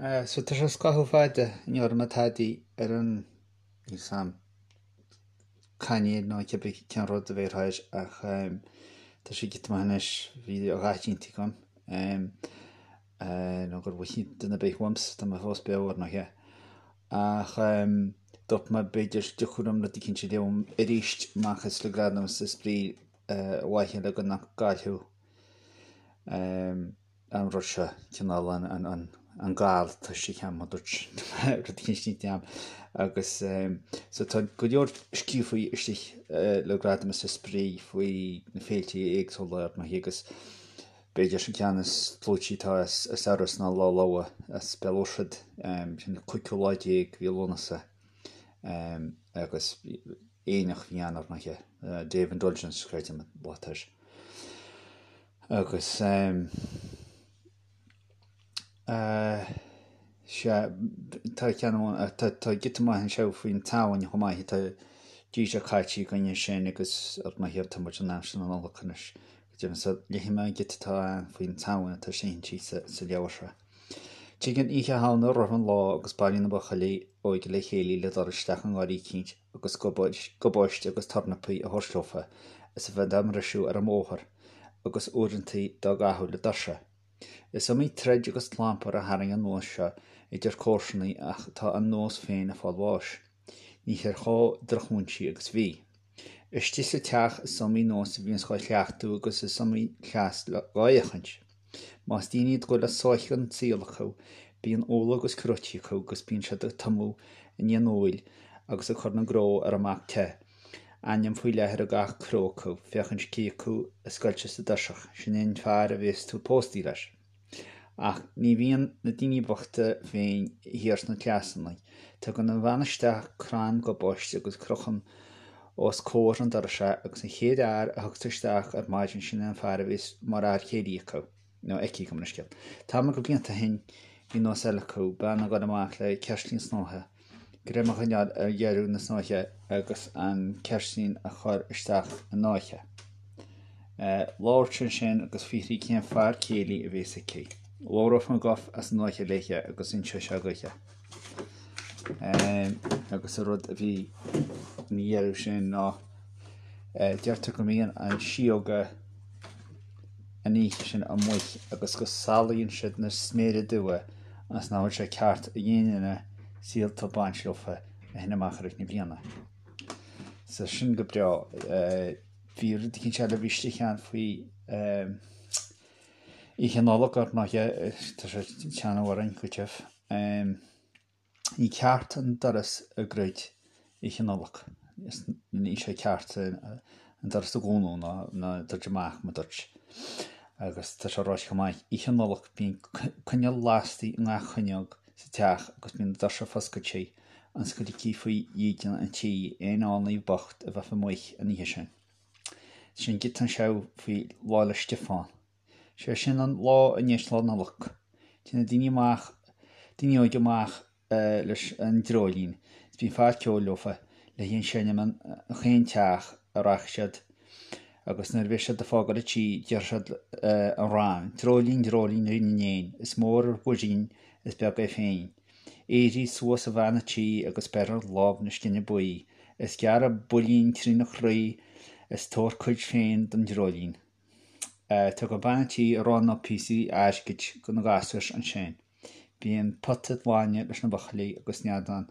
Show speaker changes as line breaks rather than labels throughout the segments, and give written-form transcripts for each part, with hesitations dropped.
So tá sé scaitheamh fada ní raibh mé tadaí ar an, níl 's a'm, cainéal nó cibé cén rud a bhéarfá air ach tá sé giota maith anois, bhí a dhath déanta agam nó gur mhothaigh duine ar bith uaimse, tá mé fós beo ar ndóighe. Ach dúirt mé b'fhéidir dtiocfadh liom rud eicínt a léamh arís amach as le gradam is spraoi ar mhaithe le go nach gcaillfeadh an rud seo, cineál an gal atá istigh a'm, a dúirt rud eicínt déanta a'm. Agus so tá go leor scríofa istigh le Gradam is Spraoi faoi na féilte éagsúla ar ndóigh agus b'fhéidir an ceann is clúití atá as Iorras ná Lá Lobhar as Béal Mhuirthead, sin an cúigiú lá déag mhí Lúnasa agus aonach a bhí ann ar ndóigh, Day of Indulgence creidim an lá atá air. Agus sea, tá ceann amháin, tá tá giota maith anseo faoin tSamhain chomh maith, tá dí seo caite againn ansin agus ar ndóigh tá muid in aimsir na Nollag anois. Go deimhin so léifidh mé an giota atá ann faoin tSamhain atá sínte sa sa leabhar seo. Tigeann Oíche Shamhna roimh an lá agus bailíonn na buachaillí óige le chéile le dul isteach i ngarraí eicínt agus gabáiste agus tornapaí a thabhairt leofa is a bheith dá mbriseadh ar an mbóthar agus uaireantaí dá gcaitheamh le doirse. Is iomaí troid agus clampar a tharraing an nós seo idir comharsanaí ach tá an nós féin ag fáil bháis. Níthear chomh drochmhúinte agus bhí. Istigh sa teach is iomaí nós a bhíonns dhá chleachtadh agus is iomaí cleas dhá fhéachaint. Más daoine iad go bhfuil a sáith den tsaol acu, bíonn úlla agus cróití acu agus bíonn siad ag tumadh i ndiaidh an úill agus ag cur na gcró ar an mbac te, ainm faoi leith ar gach cró acu, féachaint cé acu a scoilteas i dtoiseach, sin é an fear a bhéas tú póstaí leis. Ach ní bhíonn na daoine bochta féin thiar sna cleasanna. Tugann an bhean isteach crann gabáiste agus crochann os comhair an dorais é agus an chéad fhear a thiocfas isteach ar maidin sin é an fear a bhéas mar fhear céilí acu, nó aici, gabh mo leithscéal. Tamall de bhlianta ó shin bhí nós eile acu, bean ag dul amach le ceirtlín snáithe, greim a choinneáil ar dheireadh na snáithe agus an ceirtlín a chur isteach i náithe. Labhairt ansin agus fiafraí cén fear céilí a bhéas aici. Labhródh an guth as an náithe léithe agus inseodh sé dhuithe. Agus an rud a bhí ina dheireadh sin ná deirtear go mbíonn an síóga an oíche sin amuigh agus go salaíonn siad na sméara dubha agus nach bhfuil sé ceart ag aon duine síolta a bhaint leofa ó shin amach i rith na bliana. So sin go breá. Bhí rud eicínt eile a bhí istigh ann faoi Oíche Nollag ar ndóighe, tá sé ag teannadh orainn go tiubh. Ní ceart an doras a dhruid Oíche Nollag. Níl sé ceart an doras a dhúnadh ná ná druid amach mar dúirt. Agus tá sé ráite chomh maith, Oíche Nollag bíonn coinneal lasta i ngach fuinneog sa teach agus bíonn na doirse foscailte ionas go dtiocfaidh faoi dhídean an tí aon fhánaí bocht a bheadh amuigh an oíche sin. Sin giota anseo faoi Lá 'le Stiofáin. Sé sin an lá i ndiaidh Lá Nollag. Téann na daoine amach, daoine óige amach leis an dreoilín is bíonn fear ceoil leofa le hí ag seinm in chaon teach a rachaidh siad agus nuair a bheidh siad ag fágáil an tí déarfaidh siad an rann, Dreoilín, dreoilín Rí na n-éan, is mór ar mhuirín is beag é féin. Éirigh suas a bhean a' tí agus beir ar láimh na scine buí, is gearr an builín trína chroí is tabhair cuid féin don dreoilín. Tugann bean an tí arán nó píosaí airgid do na gasúir ansin. Bíonn pota bainne leis na buachaillí agus neadán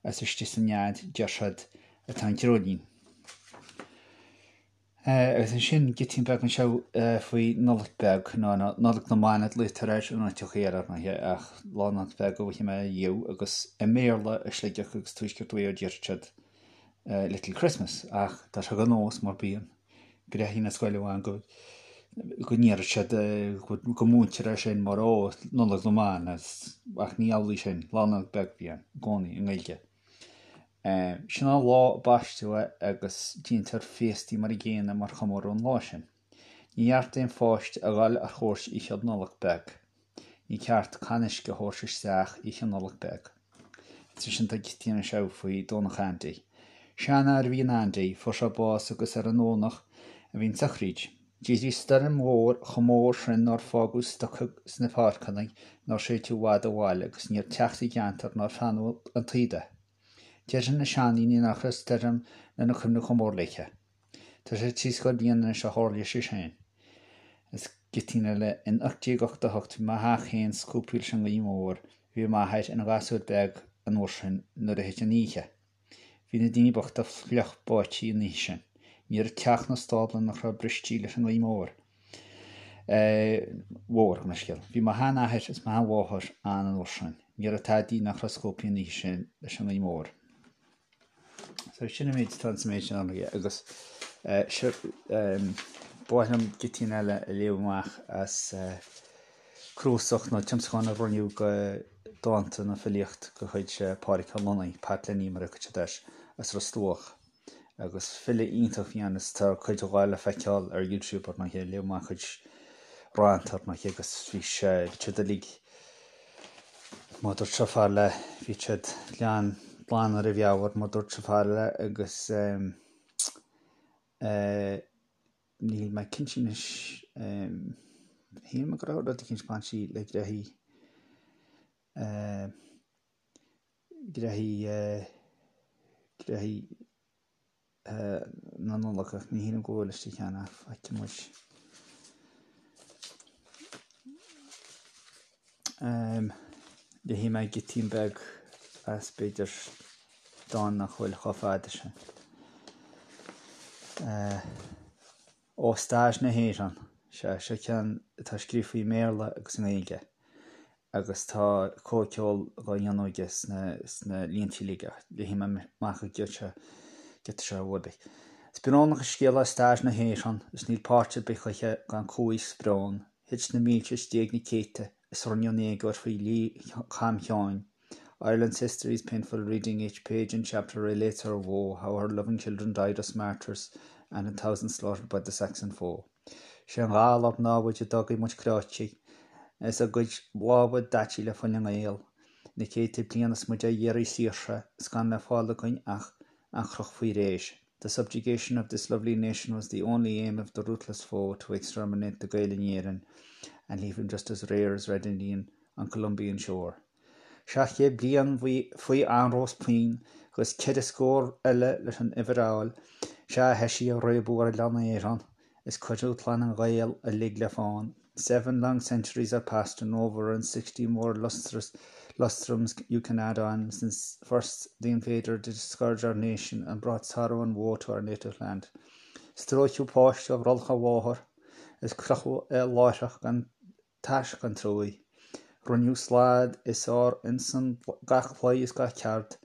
is istigh sa nead, deir siad, atá an dreoilín. Agus ansin giotín beag anseo faoi Nollaig Beag, nó Nollaig na mBan a ghlaotar air in áiteachaí eile ar ndóighe, ach Lá Nollag Beag a mhothaigh mé riamh agus i mBéarla i Sligeach agus Tuaisceart Mhaigh Eo déarfadh siad Little Christmas ach tá sé de nós mar bíonn. Gréithí na scoile amháin go go ndéarfadh siad go múintear é sin mar ó Nollaig na mBan ach ní amhlaidh sin, Lá Nollag Beag a bhí ann i gcónaí i nGaeilge. Sin an lá a baisteadh é agus déantar féastaí mar an gcéanna mar chomóradh an lá sin. Ní ceart d'aon pháiste a dhul ar chuairt Oíche Nollag Beag. Ní ceart canna uisce a thabhairt isteach Oíche Nollag Beag. Ansin tá giotín anseo faoi Domhnach Andy. Seanfhear a bhí in Andy, fuair sé bás agus ar an nDomhnach a bhí an tsochraíd. D'éirigh stoirm mhór chomh mór sin nár fágadh stoca sna páirceanna nár séideadh i bhfad ó bhaile agus ní raibh teach sa gceantar nár feannadh an taoide de. Deireann na seandaoine nach raibh stoirm lena cuimhne chomh mór léithe. Tá sé trí scór bliain anois ó tharlaigh sé sin. Is giotín eile, in 1888 bhí mo theach féin scuabtha leis an ngaoth mhór, bhí m'athair ina ghasúr beag an uair sin nuair a thit an oíche. Bhí na daoine bochta fliuch báití an oíche sin. Ní raibh teach ná stábla nach raibh bristí leis an ngaoth mór. Mhór, gabh mo leithscéal. Bhí mo sheanathair is mo sheanmháthair ann an uair sin. Ní raibh tadaí nach raibh scuabthaí an oíche sin leis an ngaoth mhór. So sin an méid atá sa méid sin ann agus seo ba mhaith liom giotín eile a léamh amach as cnuasach nó tiomsachán a rinneadh de dánta nó filíocht de chuid Pádraic Ó Lonnaigh, Pat Lenny mar a thugtaí air, as Ros Dumhach. Agus file iontach a bhí ann is tá cuid dhe le feiceáil ar YouTube ar ndóighe, léadh amach a chuid rannta ar ndóighe agus bhí sé, bhí siad uilig, mar dúirt sé fear le, bhí siad glan, glan ar a mheabhair mar dúirt sé fear le agus eh, Níl mé cinnte anois. Shíl mé go raibh rud eicínt bainte le gnoithí, gnoithí, gnoithí na Nollag ach ní shílim go bhfuil istigh cheana ach feicfidh muid. Léifidh mé giotín beag as b'fhéidir dán nach bhfuil chomh fada sin. Ó Stair na hÉireann. Sea, seo ceann atá scríofa i mBéarla agus i nGaeilge agus tá comhcheol dhá dhéanamh aige sna líntí uilig ach léifidh mé amach an giota seo uaibh. Is brónach an scéal é stair na hÉireann is níl páirt ar bith choíche gan cumhaidh 's brón. Thit na mílte is d'éag na céadta is rinneadh an éagóir faoi dhlí Cham Sheáin. Ireland's history is painful reading each page and chapter relates her woe, how her loving children died us martyrs and in thousands slaughtered by the Saxon foe. Sé an galar námhaid a d'fhágaidh muid cráite is a gcuid lámha daite le fuil na nGael. Na céadta bliain is muid á iarraidh saoirse is gan le fáil againn ach an chroch faoi réir. The subjugation of this lovely nation was the only aim of the ruthless foe to exterminate the Gael in Éirinn and leave him just as rare as Red Indian on Columbian shore. 700 bliain faoi anró 's pian agus ceithre scór eile leis an uimhir a fháil, sea thoisigh ag réabadh ar oileán Éireann is cuireadh clann an Ghaeil uilig le fán. Seven long centuries are past and over and 60 more lustrous lustrums you can add on since first the invader did scourge our nation and brought sorrow and woe to our native land. Stróiceadh páiste ó bhrollach a mháthar is crochadh é láithreach gan tásc gan truaigh. Rinneadh slad is ár ionsan gach claí is gach ceard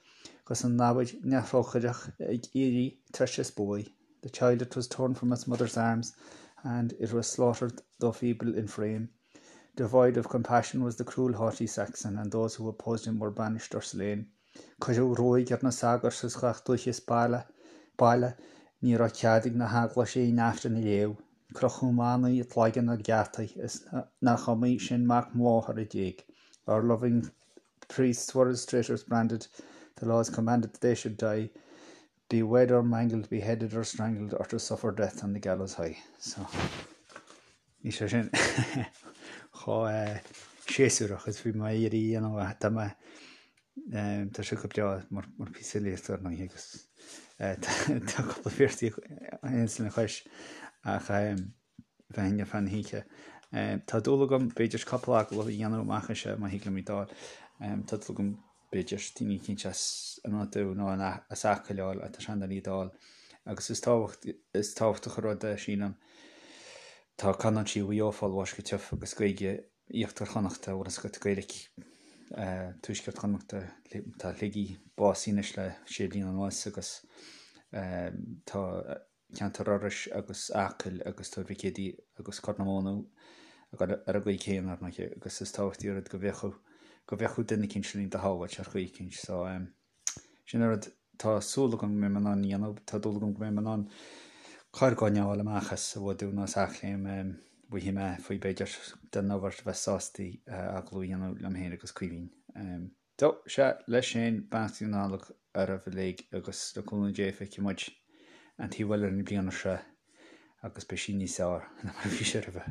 'gus an namhaid neamhthrócaireach ag iarraidh treise is buaidh. The child it was torn from its mother's arms and it was slaughtered though feeble in frame. Devoid of compassion was the cruel haughty Saxon and those who opposed him were banished or slain. Cuireadh ruaig ar na sagairt as gach dúiche is baile, baile, ní raibh cead ag na heaglaise aon Aifreann a léamh. Crochadh manaigh i gcloigeann ar gheataí is nach iomaí sin mac máthar a d'éag. Our loving priests were as traitors branded, the laws commanded that they should die. Be wed or mangled, beheaded or strangled or to suffer death on the gallows high. So, ní sé sin chomh séasúrach is bhí mé ag iarraidh a dhéanamh ach tá mé tá sé go breá mar mar píosa filíochta ar ndóigh agus tá cúpla véarsaí a théanns lena chois ach bheinn ar feadh na hoíche. Tá dúil agam, b'fhéidir, cúpla agallamh a dhéanamh amach anseo má thig liom iad a fháil. Tá dúil agam, b'fhéidir, daoine eicínt as an Dún nó as Acaill a fháil, tá sé an-doiligh iad a fháil. Agus is tábhacht, is tábhachtach an rud é, sílim. Tá canúintí Mhaigh Eo ag fáil bháis go tiubh agus Gaeilge Íochtar Chonnachta, bhfuil fhios agat, Gaeilge Tuaisceart Chonnachta, tá Shligigh básaithe anois le sé bliana anuas agus tá ceantar Iorrais agus Acaill agus Tuar Mhic Éadaigh agus Corr na Móna ar an gcaoi chéanna ar ndóigh agus is tábhachtaí an rud go bhféachadh go bhféachadh duine eicínt linn do shábháilt ar chaoi eicínt so sin an rud tá súil agam go mbeidh mé in ann a dhéanamh tá dúil agam go mbeidh mé in ann corrdhuine a fháil amach as an Bhfadú nó as Eachléim bhfaighidh mé faoi b'fhéidir den ábhar a bheith sásta agallamh a dhéanamh liom féin agus Caoimhín. So, sea, leis sin, beannachtaí na Nollag oraibh uilig agus le cúnamh Dé feicfidh muid an taobh eile den bhliain seo. Agus beidh sí níos fearr ná mar a bhí sé roimhe.